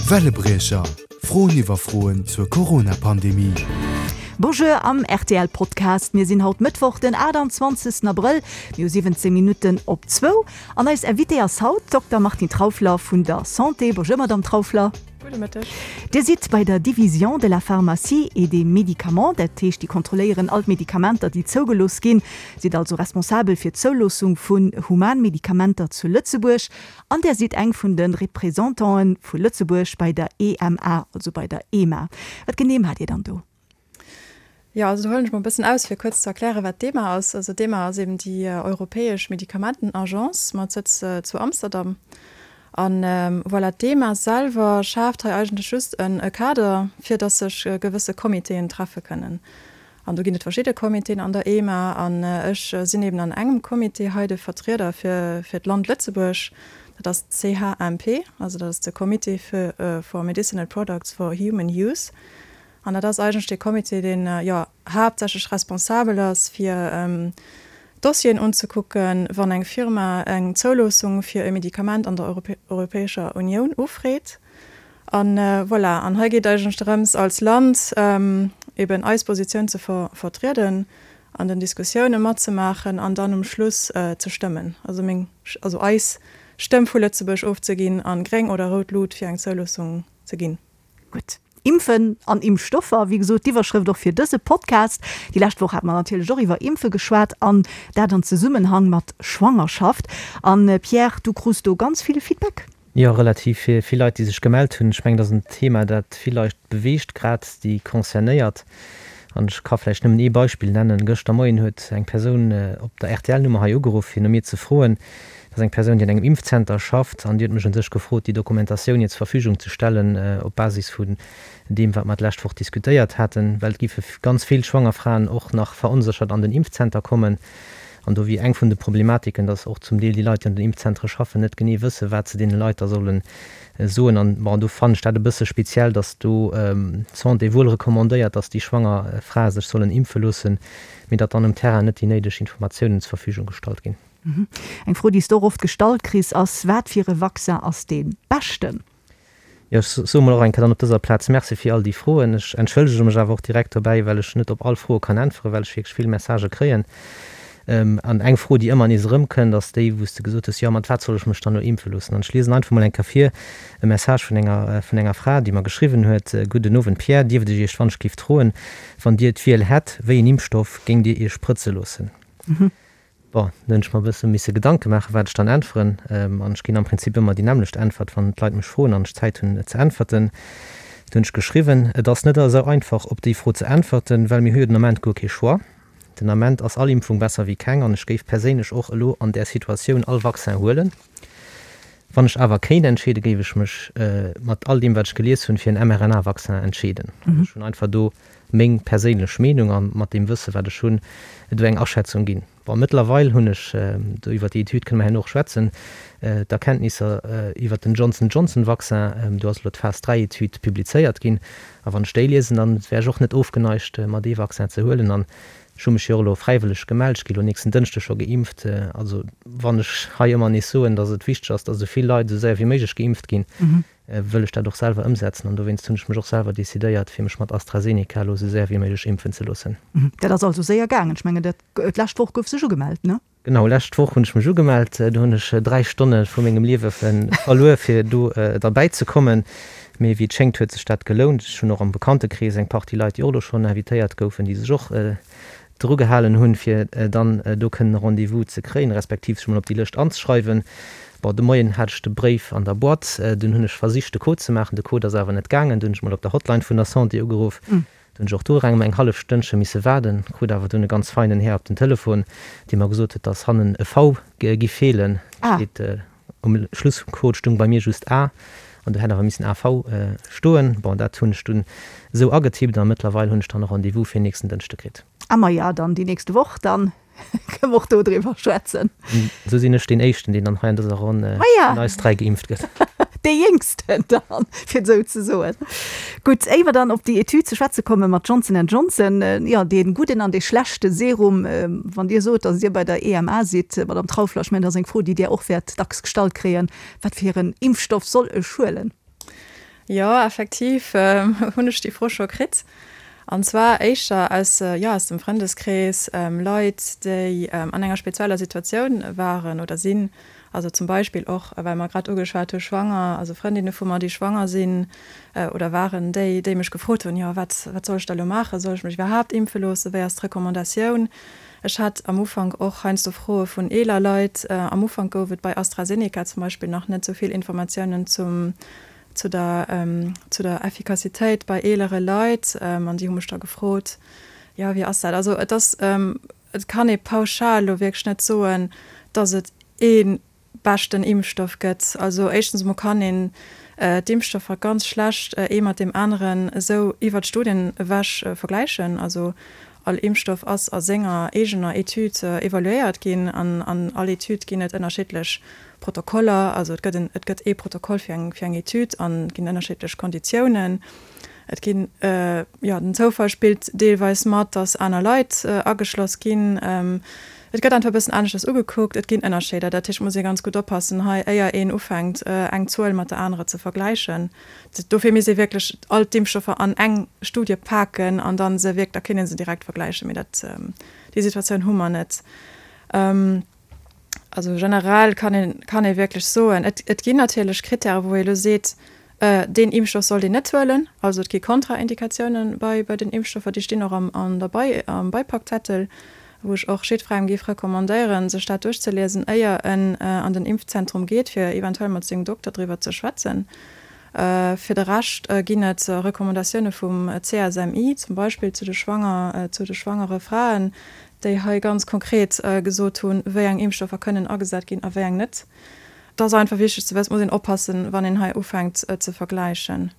Wellebriecher, Froen iwwer Froen zur Corona-Pandemie. Bonjour am rtl Podcast. Mir sinn haut Mëttwoch den 28 Abrëll, mir hu 17 Minutten op zwou an eis Invitée ass haut d'Dokter Martine Trauffler vun der Santé. Bonjour Madame Trauffler. Gudde Mëtteg. Dir sidd bei der Division de la pharmacie et des médicaments, dat heescht déi kontrolléieren all d'Medikamenter déi zougelooss ginn, sidd also responsabel fir d'Zouloossung vun Humanmedikamenter zu Lëtzebuerg an där sidd eng vun de Representanten vu Lëtzebuerg bei der EMA, also bei der EMA. Wat genee maacht Dir dann do? Jo, also do huelen ech mol e bëssen aus, fir kuerz ze erklären, wat d'EMA ass. Also d'EMA ass eben déi europäesch Medikamentenagence mat Sëtz zu Amsterdam. An voilà, d'EMA selwer schaaft hei eigentlech just e Kader, fir datt sech gewësse Comitéen treffe kënnen. An do ginn et verschidde Comitéen an der EMA an ech sinn eben an engem Comité hei de Vertrieder fir fir d'Land Lëtzebuerg. Dat ass d'CHMP, also dat ass de Comité for Medicinal Products for Human Use. An dat ass eigentlech dee Comité, deen, jo, haaptsächlech responsabel ass, fir Dossieren unzekucken, wann eng Firma eng Zouloossung fir e Medikament an der Europäescher Unioun ufreet. A voilà, an hei geet et eigentlech drëms, als Land eben eis Positioun ze vertrieden, an den Diskussioune matzemaachen an dann um Schluss ze stëmmen, also meng, also eis Stëmm vu Lëtzebuerg ofzeginn a gréng oder rout Lut fir eng Zouloossung ze ginn. Gutt. Impfen an Impfstoffer, wéi gesot d'Iwwerschrëft och fir dëse Podcast. Déi lescht Woch hate mer natierlech och iwwer Impfe geschwat an dat an Zesummenhang mat Schwangerschaft. An Pierre, du krus do ganz vill Feedback? Jo, relativ vill Leit, déi sech gemellt hunn. Ech mengen, dat ass en Thema, dat vill Leit beweegt, grad déi Concernéiert. An ech ka vläicht nëmmen ee Beispill nennen. Gëschter Moien huet eng Persoun op der RTL-Nummer hei ugeruff, fir no mir ze froen, Dat ass eng Persoun, déi an engem Impfzenter schafft an déi huet mech un sech gefrot, déi Dokumentatioun hir zur Verfügung ze stellen op Basis vun deem, wat mer d'lescht Woch diskutéiert haten, well et géife ganz vill schwanger Fraen och nach veronséchert an den Impfzenter kommen. An do wier eng vun de Problematiken, dass och zum Deel déi Leit, déi an den Impfzentere schaffen, net genee wëssen, wat se deene Leit da solle soen. An bon, do fannen ech dat e bësse speziell, dass do d'Santé wuel recommandéiert, dass déi schwanger Frae sech sollen impfe loossen, mee datt dann um Terrain net déi néideg Informatiounen zur Verfügung gestallt ginn. Eng Fro, déi s de och oft gestallt kriss, ass, Wat fir e Vaccin ass dee beschten? Jo, ech soe mol och eng Kéier dann op dëser Plaz Merci fir all déi Froen. Ech entschëllege mech awer och direkt dobäi, well ech net op all Froe kann äntweren, well ech wierklech vill Messagë kréien. An eng Fro, déi ëmmer nees erëmkënnt, ass déi, wou s de gesot hues, Jo, mat wat soll ech mech dann elo impfe loossen? An ech liesen einfach mol eng Kéier vir e Message vun enger, vun enger Fra, déi mer geschriwwen huet, Gudden Owend Pierre, dierft ech Iech wann-ech-giff froen, wann Dir d'Wiel hätt, wéi en Impfstoff géingt Dir Iech sprëtze loossen? Bon, do hunn ech mer e bësse misse Gedanke maachen, wat ech dann äntweren. An ech ginn am Prinzip ëmmer déi nämmlecht Äntwert, wann d'Leit mech froen an ech Zäit hunn ze äntwerten. Do hunn ech geschriwwen, Et ass net esou einfach, op déi Fro ze äntwerten, well mir hu jo den Ament guer kee Choix. Den Ament ass all Impfung besser wéi keng an ech géif perséinlech och elo an där Situatioun all Vaccin huelen. Wann ech awer kéint entscheeden, géif ech mech mat all deem, wat ech gelies hunn, fir en mRNA-Vaccin entscheeden. Also ech hunn einfach do meng perséinlech Meenung a mat deem Wësse wat ech hunn, do eng Aschätzung ginn. Bon, mëttlerweil hunn ech, do iwwert déi Etüd kënne mer herno och schwätzen, d'Erkenntnisser iwwert den Johnson Johnson Vaccin, do ass elo d'Phase 3 Etüd publizéiert ginn, a wann ech déi liesen, dann wär ech och net ofgeneigt mer dee Vaccin ze huelen. An ech hu mech jo och elo fräiwëlleg gemellt, ech gi elo nächsten Dënschdeg scho geimpft. Also wann ech hei ëmmer nees soen, datt et wichteg ass, datt esou vill Leit esou séier wéi méiglech geimpft ginn, wëll ech dat och selwer ëmsetzen an dowéinst hunn ech mech och selwer decidéiert, fir mech mat AstraZeneca elo esou séier wéi méiglech impfen ze loossen. Dat ass also séier gaangen. Ech mengen, dat d'lescht Woch gouf sech ugemellt, ne? Genau, lescht Woch hunn ech mech ugemellt. Do hunn ech 3 Stonne vu mengem Liewe verluer, fir do derbäi ze kommen. Mee wéi et schéngt, huet sech dat gelount. Ech hunn och am Bekanntekrees eng Partie Leit, déi och elo schonn invitéiert goufen, déi sech och dru gehalen hunn, fir dann do kënnen e Rendez-vous ze kréien, respektiv sech mol op déi Lëscht anzeschreiwen. Bon, de Moien hat ech de Bréif an der Boîte, dunn hunn ech versicht de Code ze maachen, de Code ass awer net gaangen. Dunn hunn ech mol op der Hotline vun der Santé ugeruff, do hunn ech och do ereng eng hallef Stënnche misse waarden, krut awer dunn e ganz feinen Här op den Telefon, dee mer gesot huet, dass hannen e V gi feelen, steet Um Schluss vum Code stung bei mir just A an do hätt awer missen AV stoen. Bon, dat hunn ech dunn esou agetippt a mëttlerweil hunn ech dann e Rendez-vous fir nächsten Dënschde kritt. A maja, dann déi nächste Woch, dann kënne mer och do driwwer schwätzen. Esou sinn ech deen Éischten, deen dann hei an dëser Ronn vun eis 3 geimpft gëtt. Dee Jéngsten dann, fir et esou ze soen. Gutt, éier mer dann op déi Etüd ze schwätze komme mat Johnson and Johnson, jo, dee gudden an dee schlechte Serum, wann Dir sot, datt Dir bei der EMA sidd, Madamm Trauffler, ech mengen, dat ass eng Fro, déi Dir och wäert dacks gestallt kréien, Wat fir en Impfstoff soll ech huelen? Jo, effektiv hunn ech déi Fro scho kritt. An zwar éischter aus, jo, aus dem Frëndeskrees, Leit, déi an enger spezieller Situatioun waren oder sinn. Also zum Beispill och, well mer grad ugeschwat hu schwanger, also Frëndinne vu mer, déi schwanger sinn oder waren, déi, déi mech gefrot hunn, jo, wat, wat soll ech da elo maachen? Soll ech mech iwwerhaapt impfe loossen? Wéi ass d'Recommandatioun? Ech hat am Ufank och heiansdo Froe vun eeler Leit. Am Ufank gouf et bei AstraZeneca zum Beispill nach net esou vill Informatiounen zum, zu der, zu der Effikassitéit bei eelere Leit. An déi hu mech da gefrot, jo, wéi ass dat? Also et ass, et kann ee pauschal elo wierklech net soen, datt et ee beschten Impfstoff gëtt. Also éischtens emol kann een d'Impfstoffer ganz schlecht ee mat deem aneren esou iwwert d'Studien ewech vergläichen. Also all Impfstoff ass a senger eegener Etüd evaluéiert ginn an an all Etüd ginn et ënnerschiddlech Protokoller. Also et gëtt en et gëtt ee Protokoll fir eng fir eng Etüd an et ginn ënnerschiddlech Konditiounen. Et ginn, jo, den Zoufall spillt deelweis mat, dass aner Leit ageschloss ginn. Et gëtt einfach e bëssen aneschters ugekuckt. Et ginn Ënnerscheeder. Dat heescht, et muss ee ganz gutt oppassen hei, éier een ufänkt, eng Zuel mat der anerer ze vergläichen. Dofir misst ee wierklech all d'Impfstoffer an eng Studie paken an da se wierk, da kéint ee se direkt vergläichen. Mee dat, déi Situatioun hu mer net. Also generell kann een, kann ee wierklech soen, et, et ginn natierlech Krittäre wou ee elo seet, deen Impfstoff sollt een net huelen. Also et gi Kontraindikatiounen bei, bei den Impfstoffer, déi stinn och am, an der Bei, am Beipackzettel, wou ech och jiddwerengem géif recommandéieren, sech dat duerchzeliesen, éier en an den Impfzentrum geet, fir eventuell mat sengem Dokter driwwer ze schwätzen. Fir de Rescht ginn et Recommandatioune vum CSMI, zum Beispill zu de schwanger, zu de schwangere Fraen, déi hei ganz konkret gesot hunn, wéi eng Impfstoffer kënnen agesat ginn a wéi eng net. Et ass einfach wichteg ze wëssen, et muss een oppassen, wann een hei ufänkt ze vergläichen.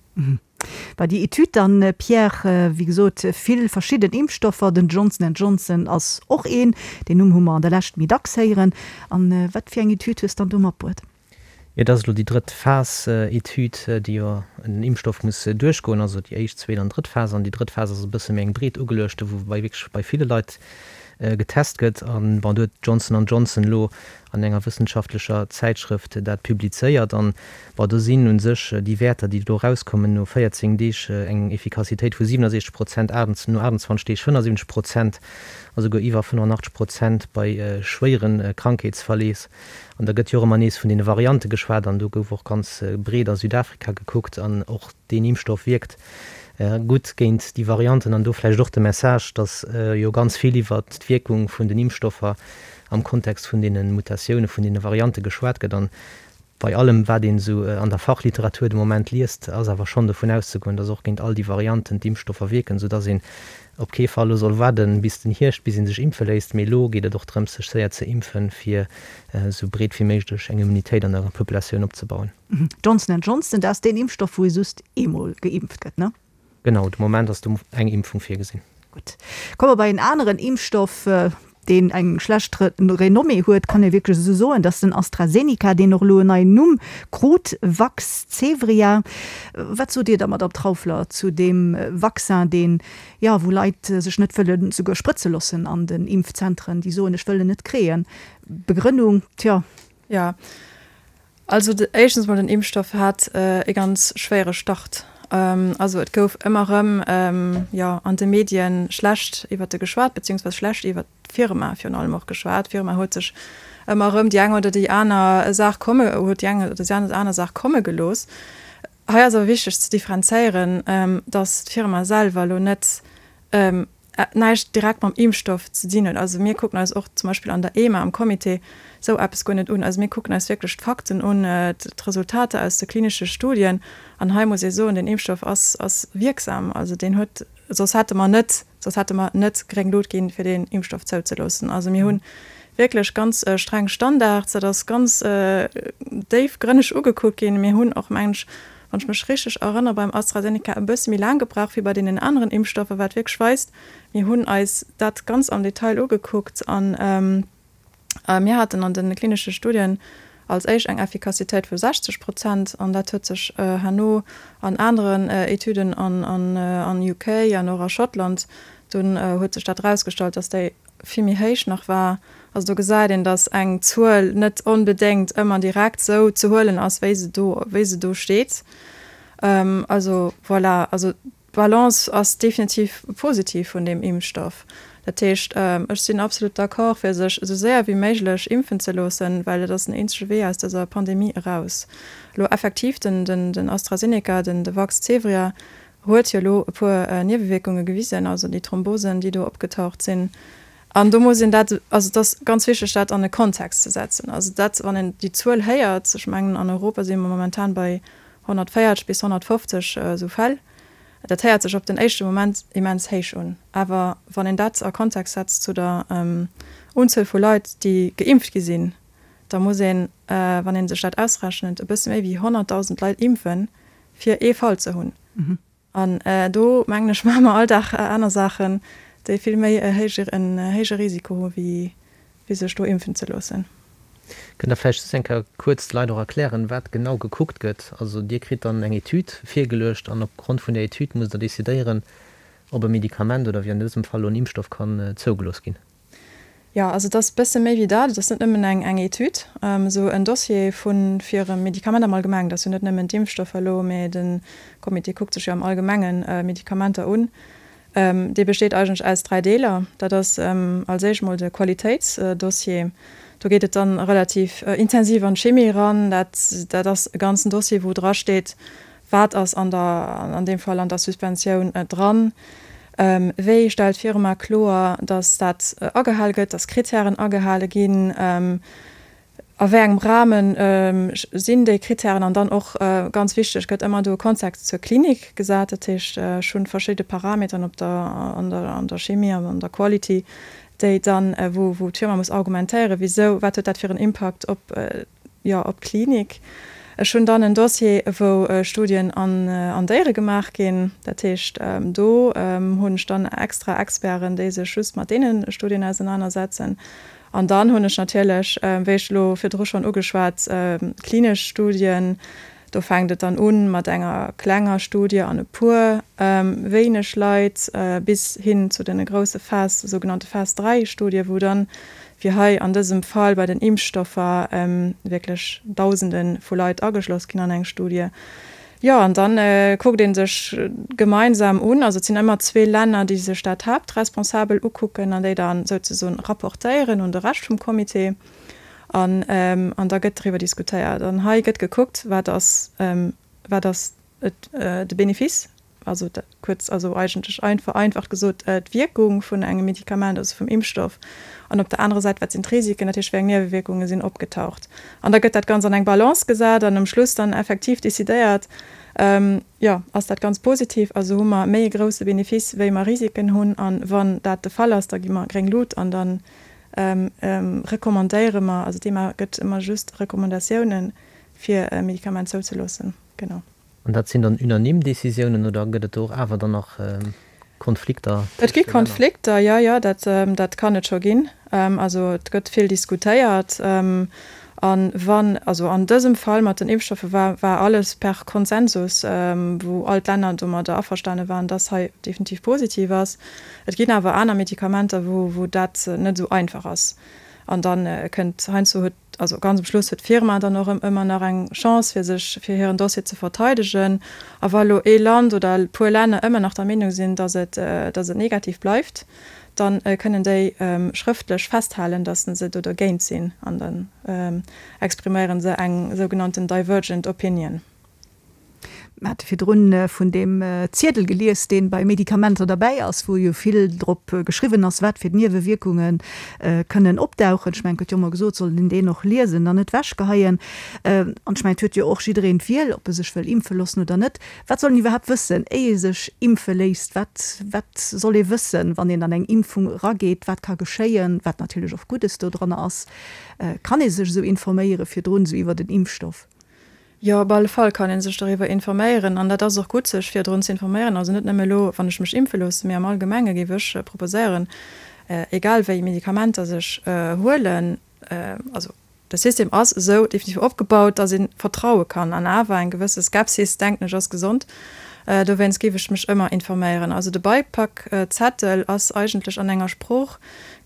Bei déi Etüd dann, Pierre, wéi gesot, vill verschidden Impfstoffer, den Johnson and Johnson ass och een, deen Numm hu mer an der Lescht méi dacks héieren. An wat fir eng Etüd hues dann do matbruet? Et ass elo déi drëtt Phas Etüd, déi jo en Impfstoff muss duerchgoen, also déi éischt, zweet an drëtt Phas. An déi drëtt Phas ass e bësse méi eng breet ugeluechte, wou bei wierklech bei ville Leit getest gëtt. An bon, do huet Johnson an Johnson elo an enger wëssenschaftlecher Zäitschrëft dat publizéiert. An bon, do sinn u sech déi Wäerter, déi do erauskommen, no 14 Deeg eng Effikassitéit vu 67 Prozent, no 28 Deeg 75 Prozent a souguer iwwer 85 Prozent bei schwéiere Krankheetsverleef. An da gëtt jo och ëmmer nees vun deene Variante geschwat an do gouf och ganz breet a Südafrika gekuckt an och deen Impfstoff wierkt gutt géint déi Varianten. An do vläicht och de Message, datt jo ganz vill iwwert d'Wierkung vun den Impfstoffer am Kontext vun deene Mutatioune vun deene Variante geschwat gëtt. An bei allem, wat een esou an der Fachliteratur de Moment liest, ass awer schonn dovun auszegoen, datt och géint all déi Varianten d'Impfstoffer wierken, soudatt een op kee Fall elo soll waarden bis den Hierscht, bis ee sech impfe léisst, mee elo geet et och drëms, sech séier ze impfen, fir esou breet wéi méiglech eng Immunitéit an der Populatioun opzebauen. Johnson and Johnson, dat ass deen Impfstoff, wou ee just eemol geimpft gëtt, ne? Genau, de Moment ass do eng Impfung virgesinn. Gutt, komme mer bei en aneren Impfstoff, deen eng schlecht Renommée huet, kann ee wierklech esou soen, dass den AstraZeneca, deen och elo en neien Numm krut, Vaxzevria. Wat sot Dir da, Madamm Trauffler, zu deem Vaccin, deen, jo, wou Leit sech net wëlle souguer sprëtze loossen an den Impfzentren, déi soen, ech wëll en net kréien. Begrënnung, tjo. Jo, Also éischtens mol den Impfstoff hat e ganz schwéiere Start. Also et gouf ëmmer erëm, jo, an de Medien schlecht iwwert e geschwat, beziehungsweise schlecht iwwert d'Firma virun allem och geschwat. D'Firma huet sech ëmmer erëm déi eng oder déi aner Saach komme, huet déi eng oder déi aner Saach komme gelooss. Hei ass awer wichteg ze differenzéieren, datt d'Firma selwer elo net näischt direkt mam Impfstoff ze dinn huet. Also mir kucken eis och zum Beispill an der EMA am Comité esou eppes guer net un. Also mir kucken eis wierklech d'Fakten un, d'Resultater aus de klinesche Studien. An hei muss ee soen, den Impfstoff ass ass wierksam. Also deen huet, soss hätte mer net, soss hätte mer net gréng Lut ginn, fir deen Impfstoff zouzeloossen. Also mir hu wierklech ganz streng Standards, dat ass ganz déifgrënneg ugekuckt ginn. Mir hunn och, mengen ech, wann ech mech richteg erënnere, beim AstraZeneca e bësse méi laang gebraucht wéi bei deenen aneren Impfstoffer, wat wierklech weist, mir hunn eis dat ganz am Detail ugekuckt an mir haten an de klinesche Studien als éischt eng Effikassitéit vu 60 Prozent an dat huet sech herno an aneren Etüden an UK an och a Schottland, dunn huet sech dat erausgestallt, dass déi vill méi héich nach war. Also do gesäit een, datt eng Zuel net onbedéngt ëmmer direkt esou ze huelen ass, wéi se do, wéi se do steet. Also voilà, also d'Balance ass definitiv positiv vun deem Impfstoff. Dat heescht, ech sinn absolut d'accord, fir sech esou séier wéi méiglech impfen ze loossen, well dat ass den eenzege Wee aus dëser Pandemie eraus. Elo effektiv, den, den AstraZeneca, den, de Vaxzevria huet jo elo e puer Niewewierkunge gewisen, also déi Thrombosen, déi do opgetaucht sinn. An do muss een dat, also et ass ganz wichteg, dat an e Kontext ze setzen. Also dat, wann een déi Zuel héiert, ech mengen an Europa si mer momentan bei 140 bis 150 esou Fäll, dat héiert sech op den éischte Moment immens héich un. Awer wann een dat a Kontext setzt zu der Unzuel vu Leit, déi geimpft gi sinn, da muss een, wann ee sech dat ausrechent, e bësse méi wéi 100.000 Leit impfen, fir ee Fall ze hunn. An do, mengen ech, maache mer all Dag aner Saachen, déi vill méi en héije Risiko hu wéi sech do impfen ze loossen. Kënnt Der vläicht just eng Kéier kuerz de Leit och erklären, wat genau gekuckt gëtt? Also Dir kritt dann eng Etüd virgeluecht an opgrond vun där Etüd musst Der decidéieren, ob e Medikament oder wéi an dësem Fall elo en Impfstoff kann zougelooss ginn. Jo, also et ass e bësse méi wéi dat. Et ass net nëmmen eng eng Etüd, esou en Dossier vu fir e Medikament am Allgemengen. Dat ass jo net nëmmen d'Impfstoffer elo, mä de Comité kuckt sech jo am Allgemenge Medikamenter un. Dee besteet eigentlech aus 3 Deeler. Dat ass als éischt mol de Qualitéitsdossier. Do geet et dann relativ intensiv an d'Chimie eran. Dat dat ass e ganzen Dossier, wou drasteet, Wat ass an der, an deem Fall an der Suspensioun dran? Wéi stellt d'Firma kloer, datt dat agehale gëtt, datt Kritären agehale ginn? A wéi engem Rahme sinn déi Kritären? An dann och ganz wichteg, gëtt ëmmer do e Kontext zur Klinik gesat? Dat heescht, ech hunn verschidde Parametern op der, an der, an der Chimie an an der Quality, déi dann, wou, wou d'Firma muss argumentéieren, wisou, wat huet dat fir en Impakt op jo, op d'Klinik. Ech hunn dann en Dossier, wou Studien an Déiere gemaach ginn. Dat heescht, do hunn ech dann extra Experten, déi sech just mat deene Studien ausenanersetzen. An dann hunn ech natierlech, wéi ech elo virdru schonn ugeschwat, klinesch Studien. Do fänkt et dann u mat enger klenger Studie an e puer wéineg Leit bis hin zu de grousse Phase, sougenannte Phase 3 Studie, wou dann, wéi hei an dësem Fall bei den Impfstoffer, wierklech Dausende vu Leit ageschloss ginn an eng Studie. Jo, an dann kuckt ee sech gemeinsam un, also et sinn ëmmer zwee Länner, déi sech dat haaptresponsabel ukucken an déi dann souzesoen rapportéieren un de Rescht vum Comité. An, an da gëtt driwwer diskutéiert. An hei gëtt gekuckt, wat ass, wat ass et, de Benefice, also kuerz, also eigentlech vereinfacht gesot, d'Wierkung vun engem Medikament, also vum Impfstoff. An op der anerer Säit, wat sinn d'Risiken, dat heescht, wéi eng Niewewierkunge sinn opgetaucht. An da gëtt dat Ganzt an eng Balance gesat an um Schluss dann effektiv decidéiert, jo, ass dat ganz positiv, also hu mer méi e grousse Benefice, wéi mer Risiken hunn. A wann dat de Fall ass, da gi mer gréng Lut an dann Recommandéiere mer, also d'EMA gëtt ëmmer just Recommandatiounen, fir e Medikament zouzeloossen, genau. An dat sinn dann unanime Décisiounen oder gëtt et do och awer dann nach Konflikter Et gi tëscht de Länner? Konflikter, jo, jo, dat, dat kann et scho ginn. Also et gëtt vill diskutéiert. A wann, also an dësem Fall mat den Impfstoffe war, war alles per Konsensus, wou all d'Länner domadder averstane waren, dass hei definitiv positiv ass. Et ginn awer aner Medikamenter, wou, wou dat net esou einfach ass. An da kënnt heiansdo huet, also ganz um Schluss huet d'Firma dann och ëmmer nach eng Chance, fir sech, fir hiren Dossier ze verteidegen. A wa elo ee Land oder e puer Länner ëmmer nach der Meenung sinn, dass et, dass et negativ bleift, da kënnen déi schrëftlech festhalen, dass se do dergéint sinn. An dann expriméiere se eng sougenannten divergent opinion. Mir hate virdrun vun deem Ziedel gelies, dee bei Medikamenter derbäi ass, wou jo vill drop geschriwwen ass, wat fir Niewewierkunge kënnen opdauchen. Ech mengen, et gëtt jo ëmmer gesot, et soll een deen och liesen an net wechgeheien. An ech mengen, et huet jo och jiddereen d'Wiel, ob e sech wëll impfe loossen oder net. Wat soll een iwwerhaapt wëssen, éi ee sech impfe léisst? Wat, wat soll ee wëssen, wann een an eng Impfung erageet? Wat ka geschéien, wat natierlech och Guddes dodranner ass? Kann ee sech esou informéiere virdrun, esou iwwert en Impfstoff? Jo, op alle Fall kann ee sech doriwwer informéieren an dat ass och gutt, sech virdrun ze informéieren. Also net nëmme elo, wann ech mech impfe loosse, mee am Allgemenge géif ech proposéieren, egal wéi Medikamenter sech huelen, also de System ass esou definitiv opgebaut, datt ee vertraue kann an awer eng gewësse Skepsis, denken ech, ass gesond. Dowéinst géif ech mech ëmmer informéieren. Also de Beipackzettel ass eigentlech an enger Sprooch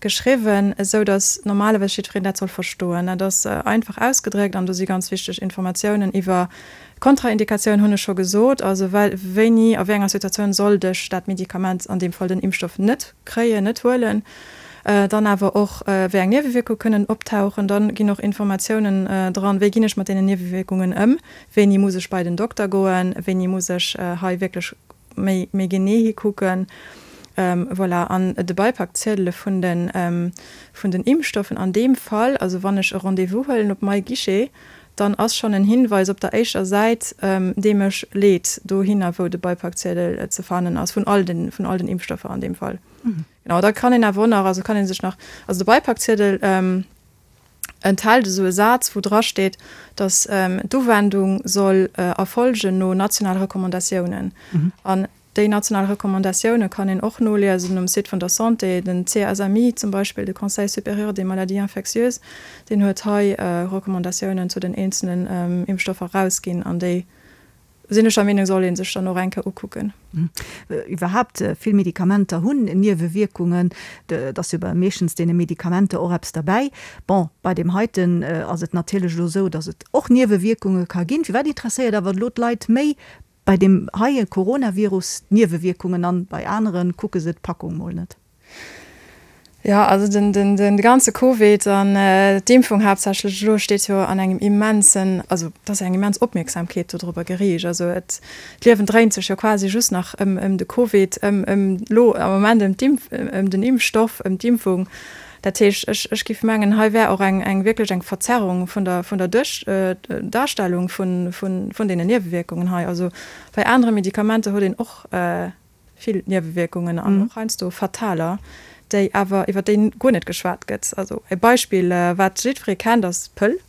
geschriwwen, esou datt normalerweis jiddwereen dat soll verstoen. Dat ass einfach ausgedréckt an do si ganz wichteg Informatiounen iwwer. Kontraindikatioun hunn ech scho gesot, also wéini, a wéi enger Situatioun sollt ech dat Medikament, an deem Fall den Impfstoff, net kréien, net huelen. Dann awer och, wéi eng Niewewierkunge kënnen optauchen. Dann ginn och Informatiounen dran, wéi ginn ech mat deenen Niewewierkungen ëm, wéini muss ech bei den Dokter goen, wéini muss ech hei wierklech méi méi genee hikucken. Voilà, an de Beipackziedele vun de vun den Impfstoffen an deem Fall, also wann ech e Rendez-vous huelen op MyGuichet, dann ass schonn en Hinweis op der éischter Säit, dee mech leet dohinner, wou de Beipackziedel ze fannen ass, vun all den vun all den Impfstoffer an deem Fall. Genau, da kann een awer och nach, also kann ee sech nach, also de Beipackziedel enthält esou e Saz, wou dra steet, datt d'Uwendung soll erfolgen no nationale Recommandatiounen. An déi national Recommandatioune kann een och noliesen um Site vun der Santé. Den CSMI zum Beispill, de Conseil supérieur des maladies infectieuses, deen huet hei Recommandatiounen zu den eenzelen Impfstoffer erausginn an déi sinn ech der Meenung, soll ee sech dann och eng Kéier ukucken. Iwwerhaapt, vill Medikamenter hunn Niewewierkungen. Et ass jo bei meeschtens deene Medikamenter och eppes derbäi. Bon, bei deem heiten ass et natierlech elo esou, datt et och Niewewierkunge ka ginn. Firwat interesséiert awer elo d'Leit méi bei deem heie Coronavirus d'Niewewierkungen an bei anere kucke se d'Packung mol net? Jo, also den, den, den ganze Covid an d'Impfung haaptsächlech elo steet jo an engem immensen, also et ass eng immens Opmierksamkeet dodrobber geriicht. Also et, d'Liewen dréint sech jo quasi just nach ëm, ëm de Covid, ëm, ëm elo am Moment ëm d'Impf, ëm den Impfstoff, ëm d'Impfung. Dat heescht, ech, ech géif mengen, hei wär och eng, eng wierklech eng Verzerrung vun der, vun der Duerch, Darstellung vun, vun, vun deenen Niewewierkungen hei. Also bei anere Medikamenter huet een och, vill Niewewierkungen an och heiansdo fataler, déi awer iwwer déi guer net geschwat gëtt. Also e Beispill, wat jiddweree kennt, ass d'Pëll.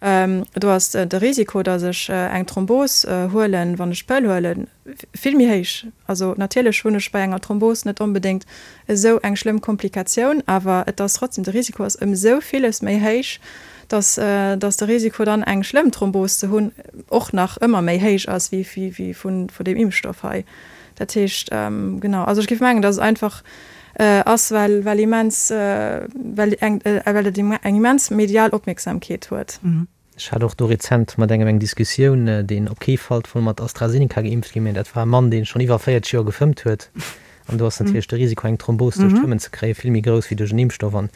Do ass de Risiko, datt ech eng Thrombos huelen, wann ech d'Pëll huelen, vill méi héich. Also natierlech hunn ech bei enger Thrombos net onbedéngt esou eng schlëmm Komplikatioun, awer et ass trotzdem, de Risiko ass ëm esou villes méi héich, datt datt de Risiko dann eng schlëmm Thrombos ze hunn och nach ëmmer méi héich ass wéi vun deem Impfstoff hei. Dat heescht, genau, also ech géif mengen, datt et einfach ass, well, well immens, well eng, well et eng immens medial Opmierksamkeet huet. Ech hat och do rezent mat engem eng Diskussioun, deen op kee Fall wollt mat AstraZeneca geimpft ginn, mä dat war e Mann, dee schonn iwwer 40 Joer gefëmmt huet. An do ass natierlech de Risiko, eng Thrombos duerch d'Fëmmen ze kréien, vill méi grouss wéi duerch en Impfstoff. An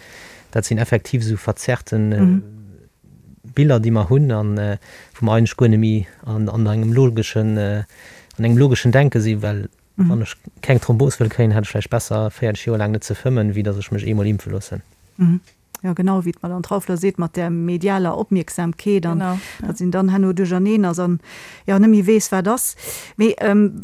dat sinn effektiv esou verzerrten Biller, déi mer hunn an wou mer eigentlech guer net méi an engem logeschen, an engem logeschen Denke sinn, well wann ech keng Thrombos wëll kréien, hätt ech vläicht besser 40 Joer laang net ze fëmmen, wéi datt ech mech eemol impfe loossen. Jo, genau, wéi d'Madame Trauffler seet, mat där medialer Opmierksamkeet an datt een dann herno duercherneen ass an, jo, net méi weess, wat ass. Mee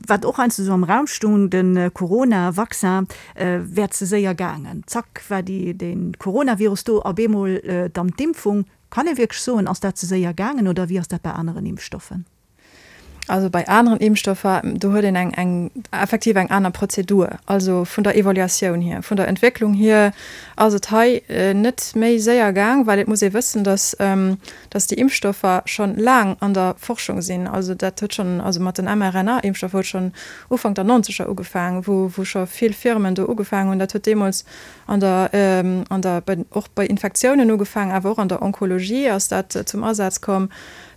wat och heiansdo esou am Raum stoung, de Corona-Vaccin wär ze séier gaangen. Zack war déi, de Coronavirus do, a bemol dann d'Impfung. Kann ee wierklech soen, ass dat ze séier gaangen oder wéi ass dat bei aneren Impfstoffen? Also bei aneren Impfstoffer, do huet een eng, eng effektiv eng aner Prozedur. Also vun der Evaluatioun hier, vun der Entwécklung hier ass et hei net méi séier gaang, well et muss ee wëssen, dass, dass déi Impfstoffer schonn laang an der Forschung sinn. Also dat huet schonn, also mat den mRNA-Impfstoffer huet schonn Ufank der Nonzeger ugefaangen, wou, wou scho vill Firmen do ugefaangen hunn. Dat huet deemools an der, an der, bei, och bei Infektiounen ugefaangen, awer och an der Onkologie ass dat zum Asaz komm.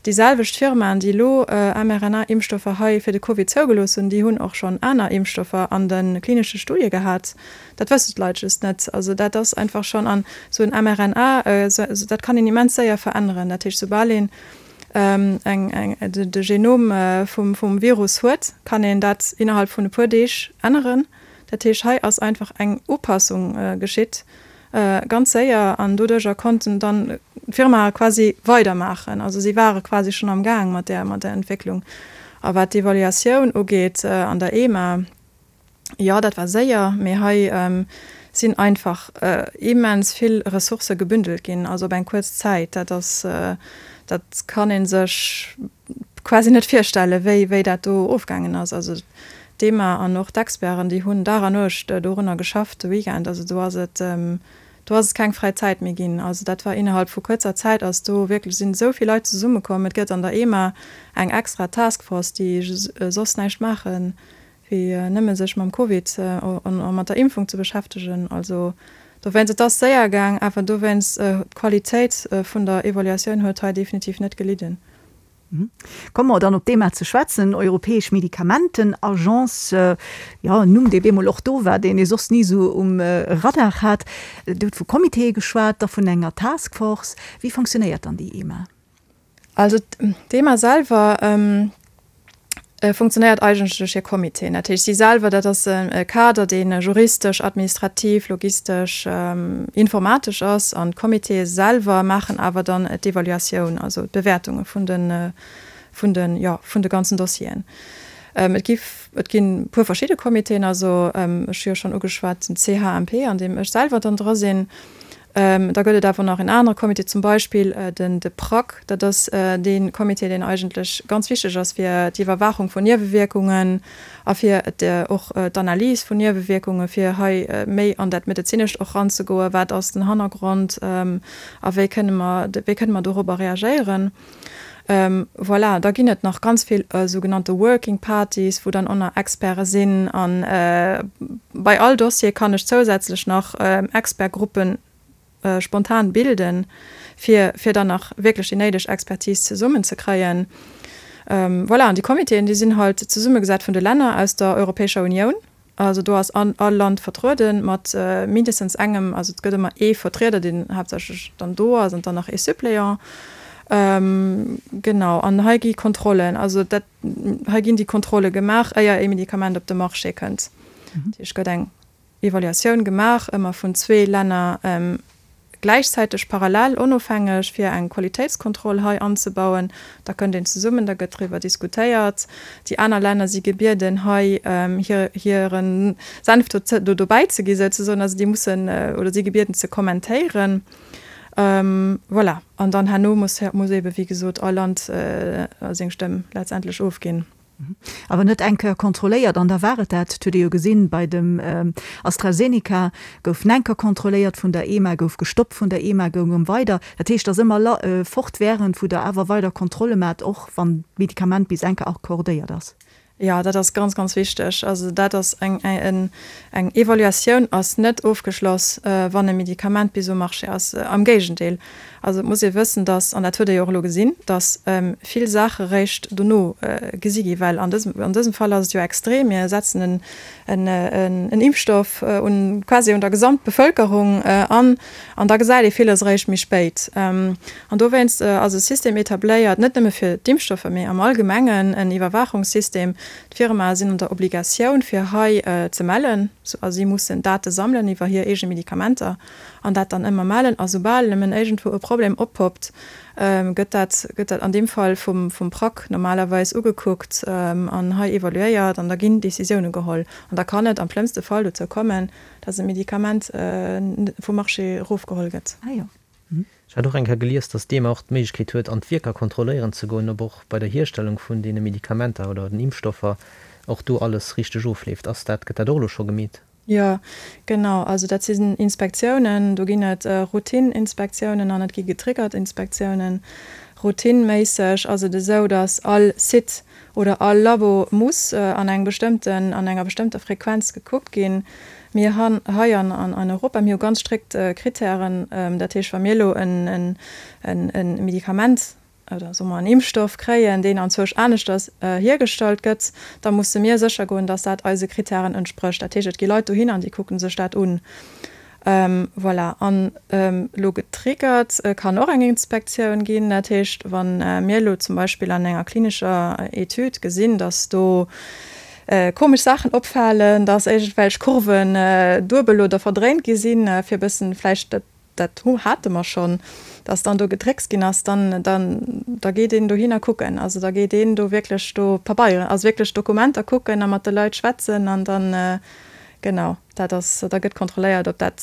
Déi selwecht Firmaen, déi elo mRNA-Impfstoffer hei fir de Covid zougelooss hunn, déi hunn och schonn aner Impfstoffer an de klinesche Studie gehat. Dat wëssen d'Leit just net. Also dat ass einfach schonn, an esou en mRNA, dat kann een immens séier veränneren. Dat heescht, soubal een eng, eng, de Genom vum, vum Virus huet, kann een dat innerhalb vun e puer Deeg änneren. Dat heescht, hei ass einfach eng Upassung geschitt, ganz séier, an doduerjer konnten dann d'Firmae quasi weidermaachen. Also si ware quasi schonn am Gaang mat där, mat där Entwécklung. A wat d'Evaluatioun ugeet an der EMA, Jo, dat war séier, mee hei sinn einfach immens vill Ressourcë gebündelt ginn, also op eng kuerz Zäit. Dat ass, dat kann ee sech quasi net virstellen, wéi, wéi dat do ofgaangen ass. Also d'EMA an och d'Experten, déi hunn Dag a Nuecht dorunner geschafft, de Weekend. Also do ass et, do ass et keng fräi Zäit méi ginn. Also dat war innerhalb vu kuerzer Zäit ass do wierklech, sinn esou vill Leit zesummekomm. Et gëtt an der EMA eng extra Taskforce, déi soss näischt maachen, wéi nëmme sech mam Covid a mat der Impfung ze beschäftegen. Also dowéinst, et ass séier gaang, awer dowéinst, d'Qualitéit vun der Evaluatioun huet hei definitiv net gelidden. Komme mer dann op d'EMA ze schwätzen, Europäesch Medikamentenagence, jo, en Numm, dee bemol och do war, deen ee soss ni esou um Radar hat. Dir hutt vu Comitéë geschwat, da vun enger Taskforce. Wéi fonctionnéiert dann déi EMA? Also d'EMA selwer funktionéiert eigentlech duerch hir Comitéen. Dat heescht, si selwer, dat ass e Kader, dee juristesch, administrativ, logistesch, informatesch ass. An d'Comitéë selwer maachen awer dann d'Evaluatioun, also d'Bewäertunge vun de, vun de, jo, vun de ganzen Dossieren. Et gi, et ginn e puer verschidde Comitéen. Also ech hu jo schonn ugeschwat den CHMP, an deem ech selwer dann dra sinn. Da gëtt et awer nach en anere Comité, zum Beispill den de PRAC. Dat ass dee Comité, deen eigentlech ganz wichteg ass fir d'Iwwerwaachung vun Niewewierkungen a fir och d'Analys vun Niewewierkungen, fir hei méi an dat Medezinescht och eranzegoen, Wat ass den Hannergrond a wéi kënne mer, wéi kënne mer dorobber reagéieren? Voilà, da ginn et nach ganz vill sougenannte Working Parties, wou dann och nach Experte sinn. A bei all Dossier kann ech zousätzlech nach Expertgruppe spontan bilden, fir fir dann nach wierklech déi néideg Expertise zesummenzekréien. Voilà, an déi Comitéen, déi sinn halt zesummegesat vun de Länner aus der Europäescher Unioun. Also do ass all Land vertruede mat mindestens engem, also et gëtt ëmmer ee Vertrieder, deen haaptsächlech dann do ass an dann nach ee Suppléant. Genau, an hei gi Kontrollen, also dat, hei ginn déi Kontrolle gemaach, éier ee Medikament op de Marché kënnt. Dat heescht, et gëtt eng Evaluatioun gemaach, ëmmer vun zwee Länner gläichzäiteg, parallel, onofhängeg, fir eng Qualitéitskontroll hei anzebauen. Da kënnt een zesummen, da gëtt driwwer diskutéiert. Déi aner Länner si gebieden, hei hire Senf do dobäi ze gi souzesoen. Also déi mussen oder si gebieden ze kommentéieren. Voilà. An dann herno muss, muss eebe wéi gesot all Land seng Stëmm letztendlech ofginn. Awer net eng Kéier kontrolléiert an da war et dat. Et huet ee jo gesinn, bei dem AstraZeneca gouf en Kéier kontrolléiert vun der EMA, gouf gestoppt vun der EMA, goung erëm weider. Dat heescht, et ass ëmmer fortwährend, wou Der awer weider Kontrolle maacht, och wann d'Medikament bis eng Kéier accordéiert ass. Jo, dat ass ganz, ganz wichteg. Also dat ass eng, eng Evaluatioun ass net ofgeschloss, wann e Medikament bis um Marché ass. Am Géigendeel. Also et muss ee wëssen, dass, an dat huet ee jo och elo gesinn, dass vill Saache réischt dono gesi gi well an dësem, an dësem Fall ass et jo extrem, mir setzen en, en Impfstoff un, quasi un der Gesamtbevëlkerung an, an da gesäit ee villes eréischt méi spéit. An dowéinst ass e System etabléiert, net nëmme fir d'Impfstoffer, mee am Allgemengen en Iwwerwaachungssystem. D'Firmae sinn an der Obligatioun, fir hei ze mellen, a si mussen Date sammelen iwwer hir eege Medikamenter. an dat dann ëmmer mellen a soubal nëmmen iergendwou e Problem oppoppt, gëtt dat, gëtt dat an deem Fall vum, vum PRAC normalerweis ugekuckt an hei evaluéiert an da ginn Décisioune geholl. An da kann et am schlëmmste Fall dozou kommen, dass e Medikament vum Marché erofgeholl gëtt. Ah jo. Ech hat och eng Kéier gelies, dass d'EMA och d'Méiglechkeet huet, an d'Wierker kontrolléieren ze goen, ob och bei der Hierstellung vun deene Medikamenter oder den Impfstoffer och do alles richteg ofleeft. Ass dat, gëtt dat och elo scho gemeet? Jo, genau. Also dat sinn Inspektiounen. Do ginn et Routine-Inspektiounen an et gi getriggert Inspektiounen. Routineméisseg ass et esou, datt all Site oder all Labo muss an engem bestëmmten, an enger bestëmmter Frequenz gekuckt ginn. Mir han hei an an Europa, mir hu ganz strikt Krittären. Dat heescht, wa mir elo en Medikament oder soe mer en Impfstoff kréien, deen anzwousch aneschters hiergestallt gëtt, da musse mir sécher goen, dass dat eise Krittären entsprécht. Dat heescht, et gi Leit dohin an déi kucke sech dat un. Voilà. An elo getriggert kann och eng Inspektioun ginn. Dat heescht, wa mir elo zum Beispill an enger klinescher Etüd gesinn, dass do komesch Saachen opfalen, dass iergendwelch Kurven duebel oder verdréint gi sinn, fir e bëssen vläicht dat dat hate mer schonn, dass dann do gedréckst ginn ass, dann, dann, da geet een dohinner kucken. Also da geet een do wierklech do Pabeieren, also wierklech Dokumenter kucken a mat de Leit schwätzen an dann, genau, dat ass, da gëtt kontrolléiert, ob dat,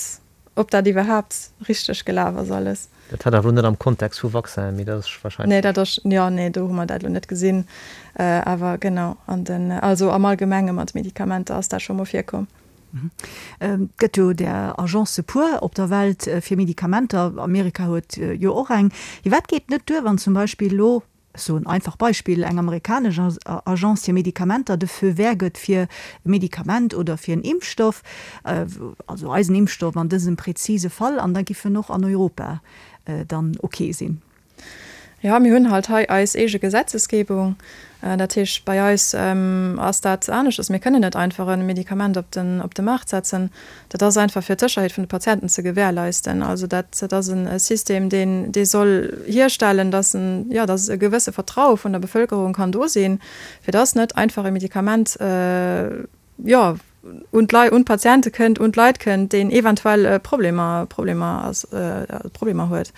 ob dat iwwerhaapt richteg gelaf ass alles. Dat hat awer elo net am Kontext vu Vaccinen, mee dat ass wahrscheinlech. Nee, dat ass, jo, nee, do hu mer dat elo net gesinn. Awer genau, an den, also am Allgemenge mat Medikamenter ass dat scho mol virkomm. Et gëtt jo där Agence puer op der Welt fir Medikamenter. Amerika huet jo och eng. Firwat geet net duer, wann zum Beispill elo, ech soen einfach Beispill, eng amerikanesch Agence fir Medikamenter de Feu vert gëtt fir e Medikament oder fir en Impfstoff, also eisen Impfstoff an dësem präzise Fall, an da giff en och an Europa dann ok sinn? Jo, mir hunn halt hei eis eege Gesetzesgebung. Dat heescht, bei eis ass dat aneschters. Mir kënnen net einfach e Medikament op den, op de Maart setzen. Dat ass einfach fir d'Sécherheet vun de Patienten ze gewährleisten. Also dat, dat ass e System, deen, dee soll hierstellen, dass en, jo, dass e gewësse Vertraue vun der Bevëlkerung kann do sinn, fir dass net einfach e Medikament, jo, un d'Lei, un d'Patiente kënnt, un d'Leit kënnt, deen eventuell Problemer, Problemer ass, Problemer huet.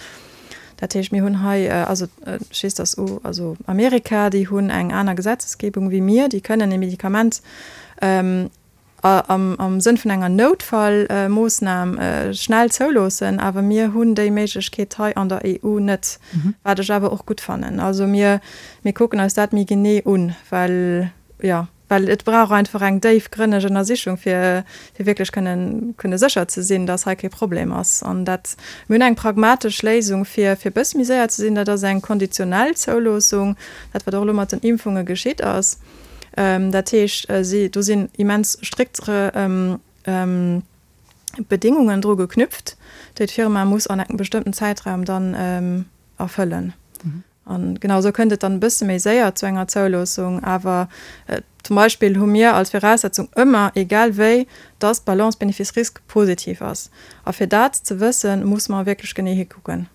Dat heescht, mir hunn hei, also ech weess, dass u, also Amerika, déi hunn eng aner Gesetzesgebung wéi mir, déi kënnen e Medikament am, am Sënn vun enger Noutfallmoossnam schnell zouloossen, awer mir hunn déi Méiglechkeet hei an der EU net, wat ech awer och gutt fannen. Also mir, mir kucken eis dat méi genee un, well, jo. Well et brauch einfach eng déifgrënneg Ënnersichung, fir fir wierklech kënnen kënne sécher ze sinn, dass hei kee Problem ass. An dat, mir hunn eng pragmatesch Léisung, fir fir e bësse méi séier ze sinn, dat ass eng konditionell Zouloossung, dat wat och elo mat den Impfunge geschitt ass. Dat heescht, si do sinn immens strikt Bedingungen dru geknüpft, déi d'Firma muss an engem bestëmmten Zäitraum dann erfëllen. An genau esou kënnt et dann e bësse méi séier zu enger Zouloossung. Awer zum Beispill hu mir als Viraussetzung ëmmer, egal wéi, dass d'Balance Bénéfice-Risque positiv ass. A fir dat ze wëssen, muss mer wierklech genee hikucken.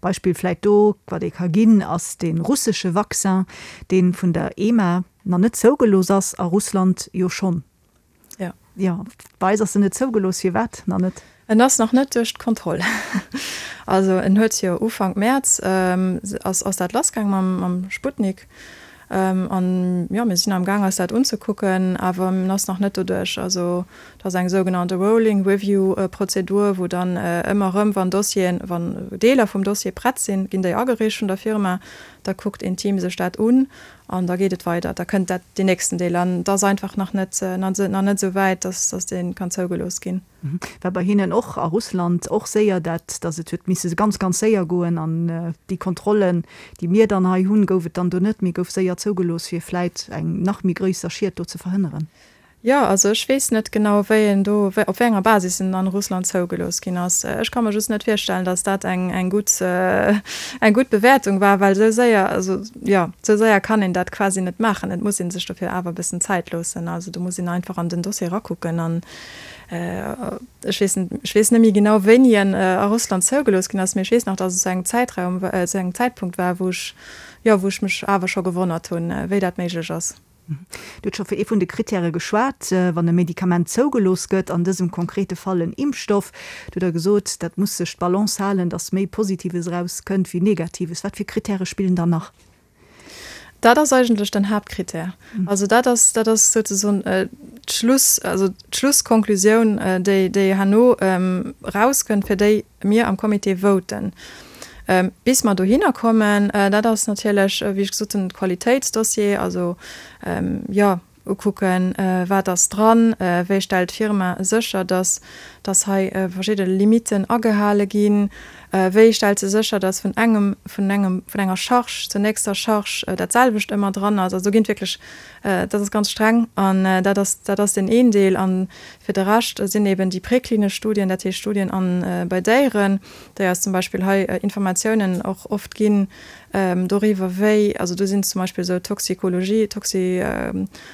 Beispill vläit do, wat ee ka ginn, ass dee russesche Vaccin, dee vun der EMA nach net zougelooss ass, a Russland jo schonn. Ja. Jo, bei eis ass en net zougelooss. Firwat nach net? En ass nach net duerch d'Kontroll. Also en huet jo Ufank Mäerz ass ass dat lassgaang mam mam Sputnik. An jo, mir sinn am Gaang eis dat unzekucken, awer en ass nach net doduerch. Also et ass eng sougenannte Rolling Review Prozedur, wou dann ëmmer erëm, wann Dossieren, wann Deeler vum Dossier prett sinn, ginn déi agereecht vun der Firma, da kuckt een Team sech dat un An da geet et weider, da kënnt dat, deen nächsten Deel. An et ass einfach nach net, nach net esou wäit, dass, dass dee kann zougelooss ginn. War bei hinnen och a Russland och séier dat, dass et huet misse ganz, ganz séier goen. An déi Kontrollen, déi mir dann hei hunn, gouf et dann do net, mee gouf séier zougelooss, fir vläit eng nach méi gröisser Schied do ze verhënneren. Jo, also ech weess net genau, wéi en do, op wéi enger Basis en an Russland zougelooss ginn ass. Ech ka mer just net virstellen, datt dat eng, eng gutt, eng gutt Bewäertung war, well esou séier, also jo, esou séier kann een dat quasi net maachen. Et muss ee sech dofir awer e bëssen Zäit loossen. Also do muss een einfach an den Dossier erakucken an ech weess net, ech weess net méi genau, wéini en a Russland zougelooss ginn ass, mee ech weess nach, datt et zu engem Zäitraum, zu engem Zäitpunkt war, wou ech, jo, wou ech mech awer scho gewonnert hunn, wéi dat méiglech ass. Dir hutt scho vu ee vun de Krittäre geschwat, wann e Medikament zougelooss gëtt, an dësem konkrete Fall en Impfstoff. Do hutt Der gesot, dat muss sech d'Balance halen, datt méi Positives erauskënnt wéi Negatives. Wat fir Krittäre spillen dann nach? Dat ass eigentlech den Haaptkrittär. Also dat ass, dat ass souzesoen d'Schluss, also d'Schlusskonklusioun, déi, déi herno erauskënnt, fir déi mir am Comité voten. Bis mer dohinner kommen, dat ass natierlech, wéi ech gesot hunn, de Qualitéitsdossier, also jo, ukucken, wat ass dran, wéi stellt d'Firma sécher, dass, dass hei verschidde Limiten agehale ginn, wéi stellt se sécher, dass vun engem, vun engem, vun enger Charge zur nächster Charge dat selwecht ëmmer dran ass. Also do ginn et wierklech, dat ass ganz streng an dat ass, dat ass deen een Deel. An fir de Rescht sinn eben déi präklinesch Studien, dat heescht Studien an, bei Déieren, déi eis zum Beispill hei Informatiounen och oft ginn doriwwer, wéi, also do sinn zum Beispill esou Toxikologie, Toxi,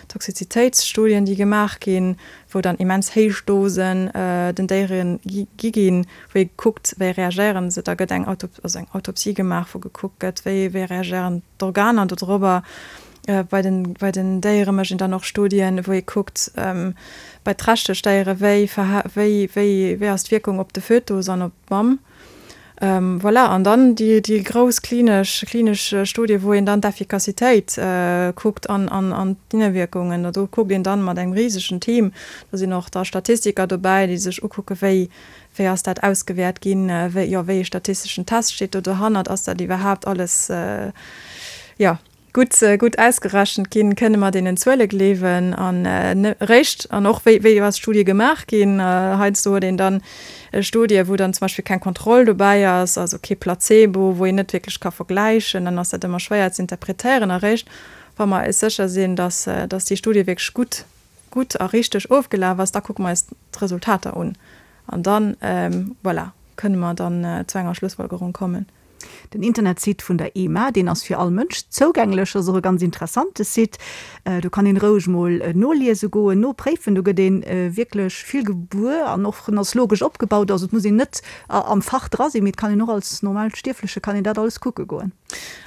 Toxizitéitsstudien, déi gemaach ginn, wou dann immens héich Dosen den Déiere gi ginn, wou ee kuckt, wéi reagéieren se. Da gëtt eng Auto, also eng Autopsie gemaach, wou gekuckt gëtt, wéi, wéi reagéieren d'Organer dodrobber. Bei den, bei den Déiere mécht een dann och Studien, wou ee kuckt, bei trächteg Déiere, wéi verha, wéi, wéi, wéi ass d'Wierkung op de Fötus an op d'Mamm. Voilà, an dann déi, déi grouss klinesch, klinesch Studie, wou een dann d'Effikassitéit kuckt an, an, an d'Niewierkungen. Do kuckt een dann mat engem risegen Team, do sinn och da Statistiker dobäi, déi sech ukucke wéi, wéi ass dat ausgewäert ginn, wéi, jo, wéi ee statisteschen Test steet do dohannert, ass dat iwwerhaapt alles, jo. Gutt, gutt ausgerechent ginn, kënne mer deenen Zuele gleewen an eréischt, an och wéi, wéi ass d'Studie gemaach ginn. Heiansdo huet een dann Studie wou dann zum Beispill keng Kontroll dobäi ass, also kee Placebo, wou een net wierklech ka vergläichen, dann ass dat ëmmer schwéier ze interpretéieren. Eréischt wa mer eis sécher sinn, dass, dass déi Studie wierklech gutt, gutt a richteg ofgelaf ass, da kucke mer eis d'Resultater un an dann, voilà, kënne mer dann zu enger Schlussfolgerung kommen. Den Internetsite vun der EMA, deen ass fir all Mënsch zougänglech, ass och e ganz interessante Site. Do kann een roueg mol noliese goen, nopréifen. Do gëtt ee wierklech vill gewuer an och en ass logesch opgebaut. Also et muss een net am Fach dra sinn, mee et kann een och als normal Stierfleche kann een dat alles kucke goen.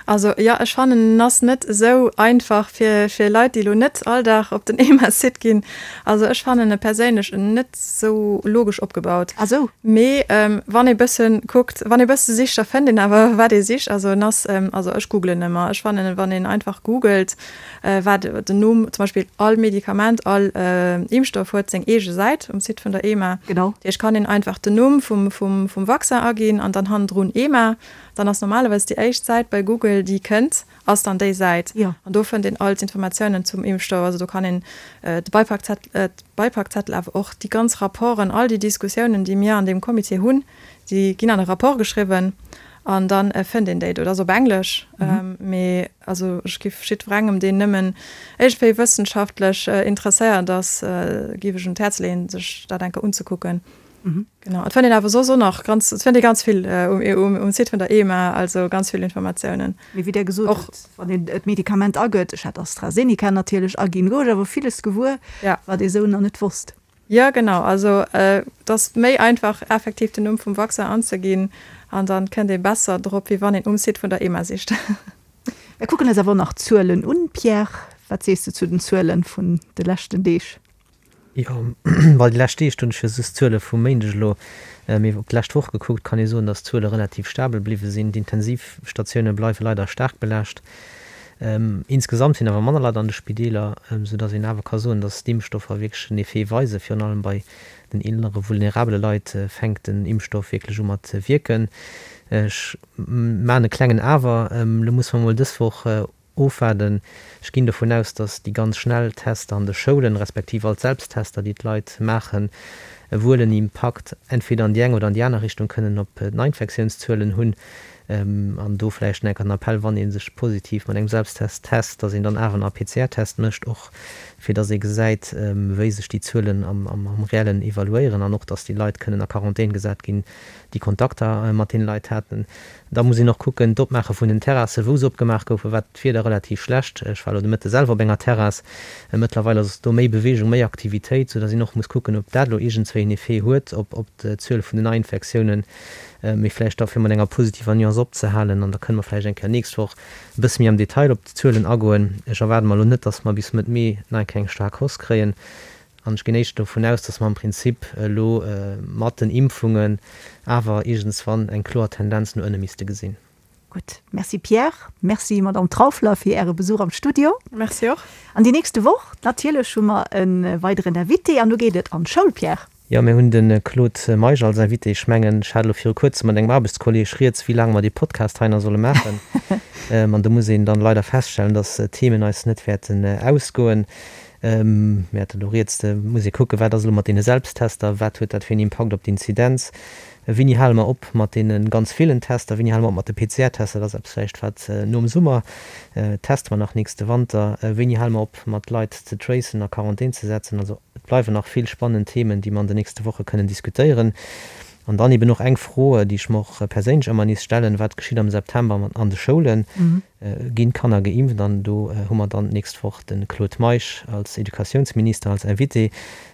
Also jo, ech fannen en ass net esou einfach fir fir Leit déi elo net all Dag op den EMA-Site ginn. Also ech fannen e perséinlech net esou logesch opgebaut. Ah sou. Mee wann ee bëssen kuckt, wann ee bësse sicht, da fënnt een awer wat ee sicht. Also en ass, also ech googlen ëmmer. Ech fannen wann een einfach googelt wat den Numm, zum Beispill all Medikament, all Impfstoff huet seng eege Säit um Site vun der EMA. Genau. Dat heescht kann een einfach den Numm vum vum vum Vaccin aginn an dann hannendrun EMA. Dann ass normalerweis déi éischt Säit bei Google, déi kënnt, ass dann déi Säit. Jo. An do fënnt een all d'Informatiounen zum Impfstoff. Also do kann een de Beipackzettel, awer och déi ganz Rapporten, all déi Diskussiounen, déi mir an deem Comité hunn, déi ginn an e Rapport geschriwwen an da fënnt een déi do. Dat ass op Englesch, mee also ech giff jiddwerengem, deen nëmmen iergendwéi wëssenschaftlech interesséiert ass, giff ech un d'Häerz leeën, sech dat eng Kéier unzekucken. Genau, et fënnt een awer soss och nach ganz, et fënnt ee ganz vill um Site vun der EMA, also ganz vill Informatiounen. Mee wéi Der gesot hutt, wann een d'Medikament agëtt, ech hat AstraZeneca natierlech aginn, gouf ech awer villes gewuer, wat ee sou nach net wosst. Jo, genau, also et ass méi einfach effektiv den Numm vum Vaccin anzeginn an dann kënnt ee besser drop, wéi wann een um Site vun der EMA sicht. Mir kucken eis awer och nach d'Zuelen un. Pierre, wat sees de zu den Zuelen vun de leschten Deeg? Jo, well déi lescht Deeg, do hunn ech jo just d'Zuele vum Méindeg elo, mee op d'lescht Woch gekuckt, kann ee soen, datt d'Zuele relativ stabel bliwwe sinn. D'Intensivstatioune bleiwe leider staark belaascht. Insgesamt sinn awer manner Leit an de Spideeler, soudatt een awer ka soen, datt d'Impfstoffer wierklech en Effet weisen. Virun allem bei den eelere vulnerabele Leit fänkt den Impfstoff wierklech u mat wierken. Ech maachen e klengen Awer, elo musse mer mol dës Woch Ofwaarden. Ech ginn dovun aus, datt déi ganz schnell Tester an de Schoulen, respektiv all d'Selbsttester, déi d'Leit maachen, wuel en Impakt entweder an déi eng oder an déi aner Richtung kënnen op d'Neiinfektiounszuelen hunn. An do vläicht nach enker den Appell, wann ee sech positiv mat engem Selbsttest test, datt een dann awer nach e PCR-Test mécht, och fir datt ee gesäit, wéi sech déi Zuelen am Reellen evaluéieren an och, datt déi Leit kënnen a Quarantän gesat ginn, déi Kontakter mat deene Leit haten. Da muss een och kucken, d'Opmaache vun den Terrassen, wou se opgemaach goufen, war d'Wieder relativ schlecht. Ech war elo de Mëtte selwer op enger Terrass. Mëttlerweil ass do méi Beweegung, méi Aktivitéit, soudass een och muss kucken, ob dat elo iergendswéi en Effet huet op d'Zuel vun den Neiinfektiounen. Mee vläicht da fir mat enger positiver Nuance opzehalen, an da kënne mer vläicht eng Kéier nächst Woch e bësse méi am Detail op d'Zuelen agoen. Ech erwaarde mer elo net, dass mer bis Mëtt Mee nach eng Kéier eng staark Hausse kréien. An ech ginn éischter dovun aus, dass mer am Prinzip elo mat den Impfungen awer iergendswann eng kloer Tendenz no ënne misste gesinn. Gutt. Merci Pierre. Merci Madamm Trauffler fir Äre Besuch am Studio. Merci och. An déi nächste Woch natierlech hu mer e weideren Invité an do geet et an d'Schoul, Pierre. Jo, mir hunn de Claude Meisch als Invité. Ech mengen, ech hat elo viru kuerzem mat engem Aarbechtskolleeg rieds, wéi laang mer dee Podcast hei nach solle maachen. An do muss een dann leider feststellen, dass d'Themen eis net wäerten ausgoen. Mir haten elo rieds, da muss ee kucken, wat ass elo mat deene Selbsttester, wat huet dat fir een Impakt op d'Inzidenz, wéini hale mer op mat deene ganz villen Tester, wéini hale mer op mat de PCR-Tester, dat ass eppes vläicht wat nom Summer, teste mer nach nächste Wanter, wéini hale mer op mat Leit ze tracen, a Quarantän ze setzen. Also et bleiwen nach vill spannend Themen, déi mer an den nächste Woche kënnen diskutéieren. An dann eben och eng Fro, déi ech mer och perséinlech ëmmer nees stellen, Wat geschitt am September an de Schoulen? Ginn d'Kanner geimpft? An do hu mer dann d'nächst Woch de Claude Meisch als Educatiounsminister als Invité,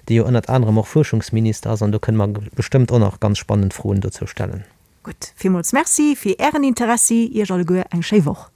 dee jo ënnert anerem och Fuerschungsminister ass. An do kënne mer bestëmmt och nach ganz spannend Froen dozou stellen. Gutt, villmools Merci fir Ären Interessi. Iech alleguer eng schéi Woch.